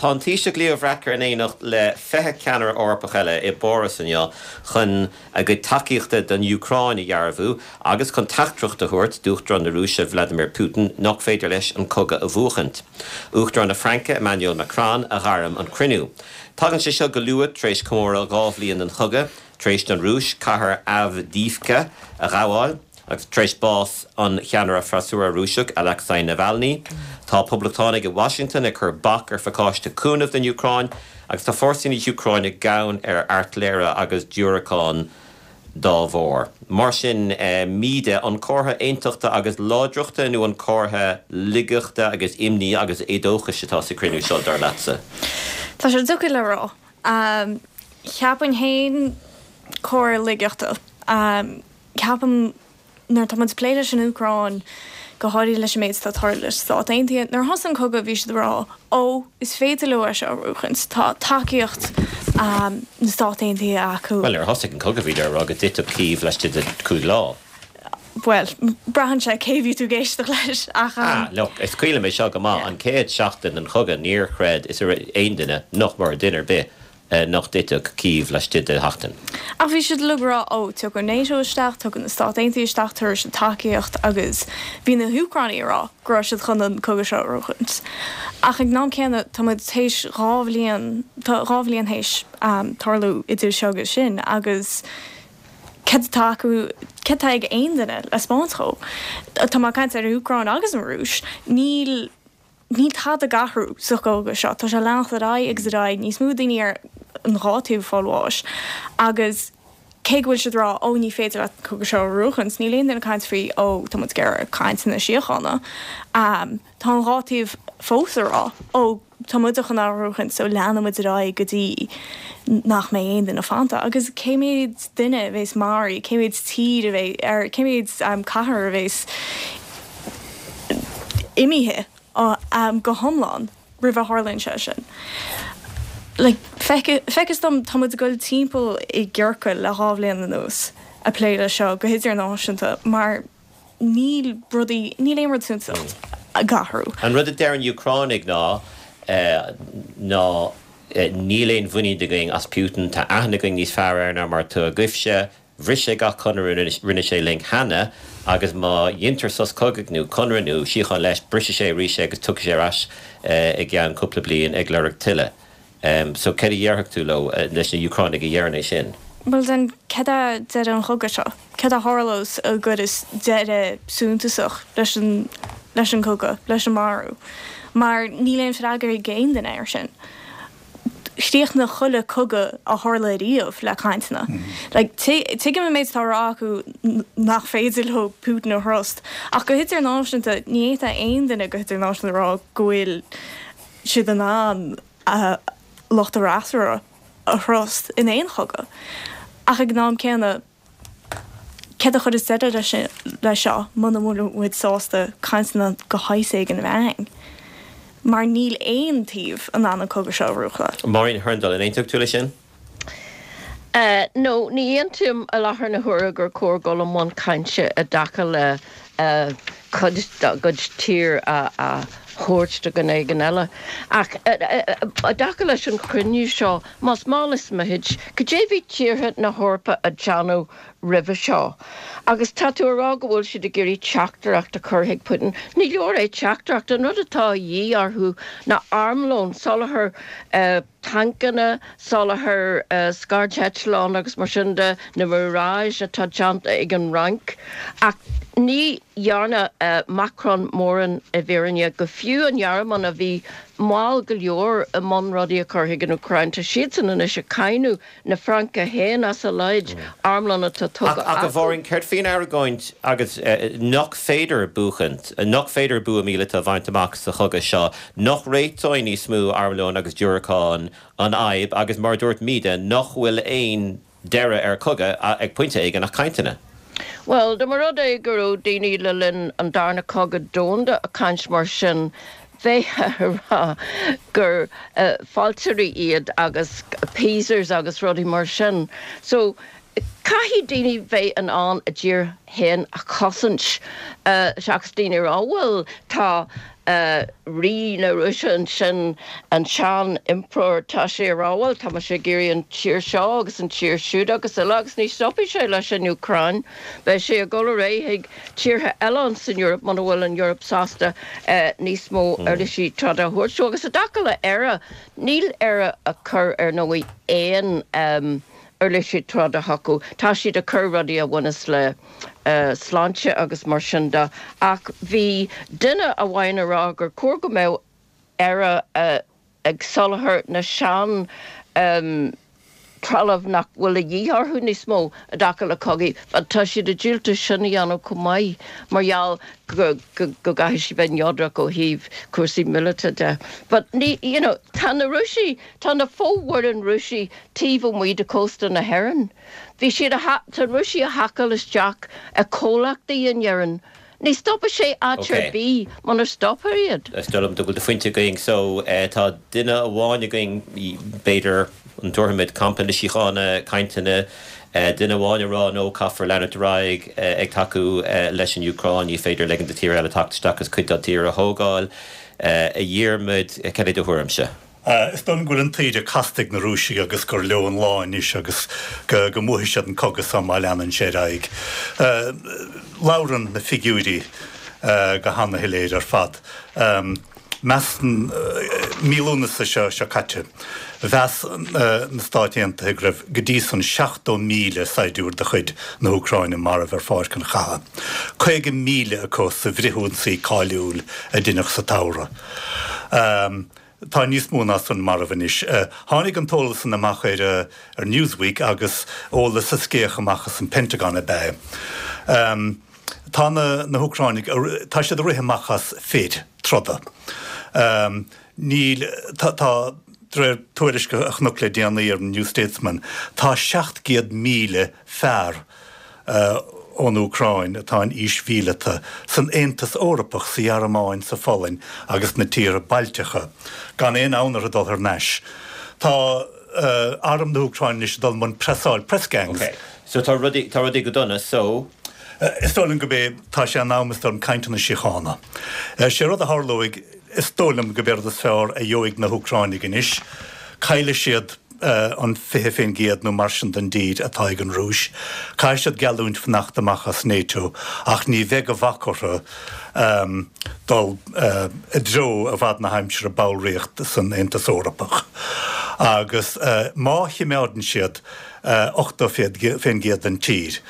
Tá an Taoiseach Leo Varadkar in éineacht le 20 ceannaire Eorpach eile i bPáras inniu chun a gcuid tacaíochta don Úcráin a dhearbhú agus chun teachtaireacht a thabhairt d'Uachtarán na Rúise Vladimir Putin nach féidir leis an cogadh a bhuachaint. Uachtarán na Fraince Emmanuel Macron a ghairm an cruinniú. Tagann sé seo go luath tar éis comóradh 2 bhliain den chogadh, tar éis don Rúis cathair Avdiivka a ghabháil. Agus tar éis bás an cheannaire freasúra Rúiseach Alexei Navalny, tá poblachtánaigh i Washington ag cur bac ar phacáiste cúnaimh don Úcráin agus tá fórsaí na hÚcráine gann ar airtléire agus diúracáin dá bharr. Mar sin, Míde, an comhartha aontachta agus láidreachta nó an comhartha laigeachta agus imní agus éadóchais atá sa chruinniú seo, dar leatsa? Tá sé deacair le rá. Cheapfainn féin comhartha laigeachta. Ceapaim, nuair atá muid ag plé leis an Úcráin, go háirithe leis an méid atá ag tarlú leis na Stáit Aontaithe, nuair a thosaigh an cogadh bhí siad ag rá, ó, is féidir leo é seo a bhuachaint, tá tacaíocht na Stát Aontaithe acu. Bhuel, nuair a thosaigh an cogadh bhíodar ag rá go dtitfeadh Cív laistigh de chúig lá. Bhuel, braitheann sé cé bhí tú ag éisteacht leis, ach. Ah, look, is cuimhin liom é seo go maith, an chéad seachtain den chogadh níor chreid is aon duine, nach mór, duine ar bith, nach dtitfeadh Cív laistigh de sheachtain. Ach bhí siad uilig ag rá, ó, tiocfaidh NATO isteach, tiocfaidh na Stáit Aontaithe isteach, tabharfaidh siad tacaíocht agus bhí na hÚcránaigh ag rá go raibh siad chun an cogadh seo a bhuachaint. Ach ag an am céanna, tá muid théis 2 bhliain, tá 2 bhliain théis tarlú idir seo agus sin agus céard atá acu, céard atá ag aon duine le 'spáint dhó? Tá mé ag caint ar an Úcráin agus an Rúis, níl. Níl tada ag athrú sa chogadh seo. Tá sé ag leanacht ar aghaidh agus ar aghaidh, níos mó daoine ar an dhá taobh ag fáil bháis agus cé go bhfuil siad ag rá ó ní féidir leat an cogadh seo a bhuachaint, níl aon duine ag caint faoi ó tá muid ag iarraidh cainteanna síochána. Tá an dhá taobh fós ag rá ó tá muide chun é a bhuachaint so leanfaidh muid ar aghaidh go dtí nach mbeidh aon duine fanta. Agus cé mhéad duine a bheas maraithe, cé mhéad tír a bheidh, ar cé mhéad cathair a bheas imithe go hiomlán roimh a tharlaíonn sé sin. Like, feictear dom, tá muid ag dul timpeall i gciorcal le 2 bhliain anuas ag plé leis seo go hidirnáisiúnta mar níl rudaí, níl aon rud suntasach ag athrú. An rud a deir an Úcránaigh ná ná níl aon mhuinín againn as Putin, tá aithne againn níos fearr air ná mar atá agaibhse, Bhris sé gach conradh a rinne sé linn cheana agus má dheintear sos cogaidh nó conradh nó síocháin leis, brisfidh sé arís é agus tiocfaidh sé ar ais i gceann cúpla bliain ag lorg tuilleadh. So céard a dhéarfadh tú leo, leis na Úcránaigh a dheireann é sin? Bhuel then, céard é deireadh an chogaidh seo? Céard a tharlós a gcuirfeas deireadh suntasach leis an, leis an gcogadh, leis an marú? Mar níl aon freagra ag aon duine air sin. Chríochnaigh chuile cogadh a tharla ariamh le cainteanna. Like, tuigim an méid atá á rá acu nach féidir leo Putin a thrust, ach go hidirnáisiúnta, ní fhéadfadh aon duine go hidirnáisiúnta a rá go bhfuil siad in ann lucht a bhfreasúra a thrust in aon chogadh. Ach ag an am céanna, Céard a chuirfeas deireadh leis seo muna bhfuil muid sásta cainteanna de shaghas éigin a bheith ann? Mar níl aon taobh in ann an cogadh seo a bhuachan. Máirín Hurndall, an aontódh tú leis sin? No, ní aontaím i láthair na huaire gur cóir dul i mbun cainte i dtaca le cuid dá gcuid tír a thabhairt do dhuine éigin eile. Ach i dtaca leis an chruinniú seo, más mall is mithid, cad é bhí tíortha na hEorpa a déanamh roimhe seo? Agus tá tú a rá go bhfuil siad ag iarraidh teachtaireacht a chur chuig Putin. Ní leor é teachtaireacht, an rud atá a dhíth orthu ná armlón, soláthar tancanna, soláthar scairdeitleán agus mar sin de, na Mirage atá déanta ag an Fhrainc. Ach ní dhearna Macron mórán i bhfírinne, go fiú an Ghearmáin a bhí mall go leor i mbun rudaí a chur chuig an Úcráin, tá siadsan anois ag cáineadh na Fraince féin as a laghad armlón atá tugtha Ach a acu. Mháirín, céard faoin argóint agus nach féidir buachaint, nach féidir bua míleata a bhaint amach sa chogadh seo, nach réiteoidh níos mó armlóin agus diúracán an fhadhb agus mar a dúirt Míde, nach bhfuil aon deireadh ar chogadh ag pointe éigin ach cainteanna? Bhuel, dá mba rud é go raibh daoine le linn an Darna Cogadh Domhanda ag caint mar sin, bheifeá ag rá gur fealltóirí iad agus appeasers agus rudaí mar sin. So, caithfidh daoine bheith in ann a dtír féin a chosaint seachas daoine a rá, bhuel, tá. Rí na Rúise ansin, an sean-impireoir, tá sé ag rá, bhuel, tá mise ag iarraidh an tír seo agus an tír siúd agus uile agus ní stopfaidh sé leis an Úcráin. Beidh sé ag dul ar aghaidh chuig tíortha eile ins an Eoraip muna bhfuil an Eoraip sásta níos mó uirlisí troda a thabhairt dó. Agus i dtaca le Éire, níl Éire ag cur ar ndóigh aon uirlisí troda chucu. Tá siad ag cur rudaí a bhaineas le sláinte agus mar sin de. Ach bhí duine amháin ag rá gur chóir go mbeadh Éire ag soláthar na sean trealamh nach bhfuil a dhíth orthu níos mó i dtaca le cogaí. But tá siad ag diúltú sin a dhéanamh chomh maith mar gheall go go gcaithfidh siad bheith neodrach ó thaobh cúrsaí míleata de. But ní, you know, tá na Rúisigh, tá na fomhuireáin Rúisigh taobh amuigh de chósta na hÉireann. Bhí siad a, tá na Rúisigh a haiceáil isteach i comhlachtaí in Éirinn. Ní stopfaidh sé áit ar bith munar stopfar iad. Is dóigh liom go bhfuil do phointe againn. So, tá duine amháin againn, b'fhéidir, an dtabharfaimid campa na síochána, cainteanna, duine amháin ag rá no, caithfear leanúint ar aghaidh ag tacú leis an Úcráin, ní féidir ligean do tír eile teacht isteach agus cuid dá dtír a thógáil. A Dhiarmaid, cad é do thuairimse? Is dóigh liom go bhfuil an taoide casta ag na Rúisigh agus gur leo an lá anois agus go mbuafaidh siad an cogadh seo má leanann sé ar aghaidh. Labhrann na figiúirí go hana-shoiléir ar fad. Measann, mí Lúnasa seo seo caite, mheas na Stáit Aontaithe go raibh go dtí san 70,000 saighdiúir de chuid na hÚcráine marbh ar pháirc an chatha, 50,000 acu sa bhfrithionsaí cáiliúil a deineadh sa tsamhradh. Tá níos mó ná san marbh anois. Tháinig an t-eolas san amach ar ar Newsweek agus eolas a scéach amach as an Pentagon ab ea é. Tá na na hÚcráinigh, tá siad ag rith amach as fir troda. Níl, tá, tá, de réir tuairisc a chonac le déanaí ar an New Statesman, tá 700,000 fear, ón Úcráin atá in aois mhíleata, san Aontas Eorpach, sa Ghearmáin, sa Pholainn agus sna tíortha Bailteacha, gan aon fhonn orthu dul thar n-ais. Tá arm na hÚcráine anois ag dul i mbun preasáil, press gangs. Ok, so tá rudaí, tá rudaí go dona, so. Is dóigh liom gurb é, tá sé in am, is dóigh liom, cainteanna síochána. Sé rud a tharlóidh, is dóigh liom gurb é rud is fearr a gheobhaidh na hÚcráinigh anois, caillfidh siad an 20% nó mar sin den dtír atá ag an Rúis. Caithfidh siad geallúint fanacht amach as NATO ach ní bheidh de bhac orthu dul i dtreo i bhfad na haimsire ballraíocht san Aontas Eorpach. Agus má chimeádann siad 80% den tír,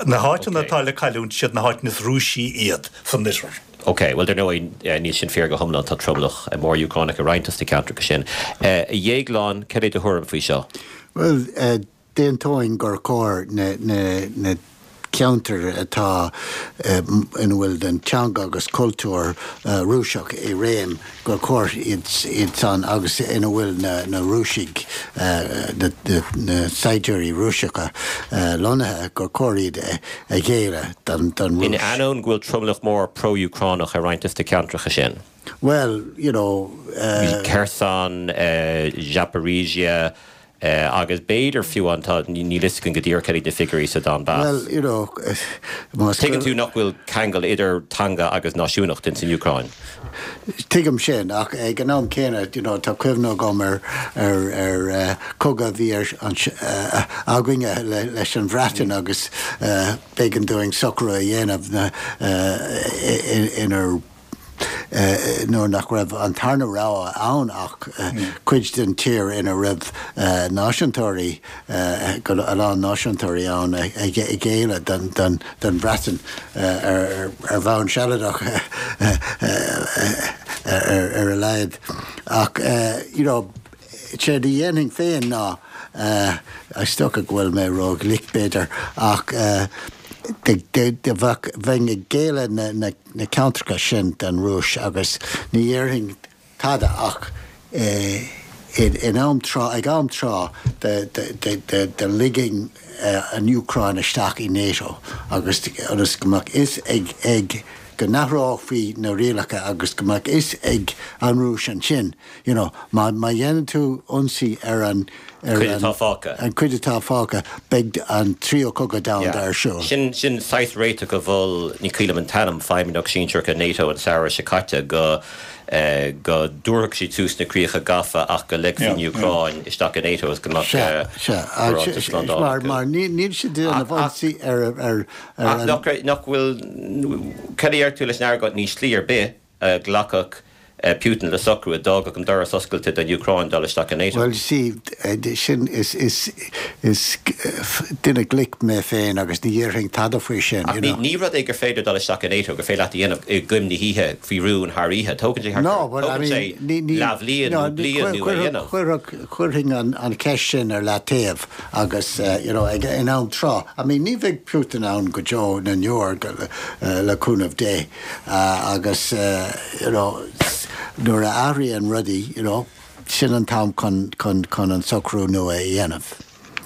na háiteanna atá le cailliúint, siad na háiteanna is Rúisí iad san oirthear. Ok, bhuel dar ndóigh níl sin fíor go hiomlán, tá tromlach mór Úcránach i roinnt dos na ceantracha sin. A Dhéagláin, cad é do thuairim faoi seo? Bhuel, d'aontóinn gur chóir na ceantair atá ina bhfuil an teanga agus cultúr Rúiseach i réim, gur chóir iad san agus ina bhfuil na Rúisigh, na saighdiúirí Rúiseacha lonnaithe, gur chóir iad a ghéilleadh don Rúis. In ainneoin go bhfuil tromlach mór pro-Úcránach i roinnt dos na ceantracha sin. Bhuel, you know. Kherson, Zaporizhzhia, agus b'fhéidir fiú an, tá, níl fhios againn go díreach cad iad na figiúirí sa Donbass. Bhuel, you know, más. Tuigeann tú nach bhfuil ceangal idir teanga agus náisiúnacht ins an Úcráin. Tuigim sin, ach ag an am céanna, you know, tá cuimhne agam ar, ar, ar cogadh a bhí ar, againne leis an Bhreatain agus b'éigean dúinn socrú a dhéanamh inar nuair nach raibh an tarna rogha ann ach cuid den tír ina raibh náisiúntóirí, a lán náisiúntóirí ann a ghéilleadh don Bhreatain ar bhonn sealadach ar a laghad. Ach you know, séard a dhéanfainn féin ná, is dócha go bhfuil mé ró-ghlic b'fhéidir, ach bheinn ag géilleadh na na ceantracha sin don Rúis agus ní dhéarfainn tada ach in am tráth, ag am tráth do ligfinn an Úcráin isteach i NATO agus ionas go mbeadh fhios ag. go n-athrófaí na rialacha agus go mbeadh fhios ag an Rúis ansin, you know, má má dhéanann tú ionsaí ar an ar Cuid atá fágtha. an cuid atá fágtha, beidh an tríú cogadh domhanda ar siúl. Sin sin saghas réiteach a mhol, ní cuimhin liom an t-ainm, feidhmeannach sinsearach i NATO an samhradh seo caite go go dtabharfadh siad suas na críocha gafa ach go ligfí an Úcráin isteach i NATO agus go mbeadh Sea, sea. barántas slándála Mar acu. mar ní níl siad ag déanamh ionsaí ar ar ar Ach an nach nach bhfuil, cad a deir tú leis an argóint, níl slí ar bith a nglacfadh Putin le socrú a d'fhágfadh an doras oscailte don Úcráin dul isteach i NATO? Bhuel, see, sin, is, is, is duine glic mé féin agus ní dhéarfainn tada faoi sin, Ach you ní, know. ní rud é gur féidir dul isteach i NATO, gur féidir leat a dhéanamh i gcoim na hoíche faoi rún thar oíche. Tógann sé thart No, ar, but I tógann mean, sé ní, ní, leathbhliain no, nó bliain nó a dhéanamh. Chuirfeadh, chuirfinn an, an cheist sin ar leataobh agus, you know, ag, in am tráth. I mean, ní bheidh Putin ann go deo na ndeor, le cúnamh Dé. Agus you know nuair a athraíonn rudaí you know sin an t-am chun chun chun an socrú nua a dhéanamh.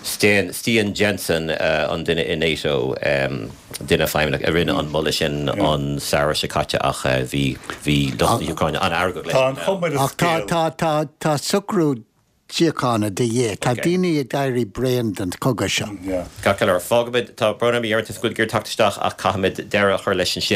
Stian Stian Jensen an duine i NATO, duine feidhmeannach a rinne an moladh sin an samhradh seo caite ach bhí bhí lucht na hÚcráine an-fheargach leis Tá an chuma ar an Ach tá scéal. tá tá tá socrú síochána de dhíth. Tá daoine ag éirí bréan den chogadh seo. Ceart go leor, fágfaimid, tá brón orm a Dheireadh, go bhfuil tú ag iarraidh teacht isteach ach caithfimid deireadh a chur leis ansin.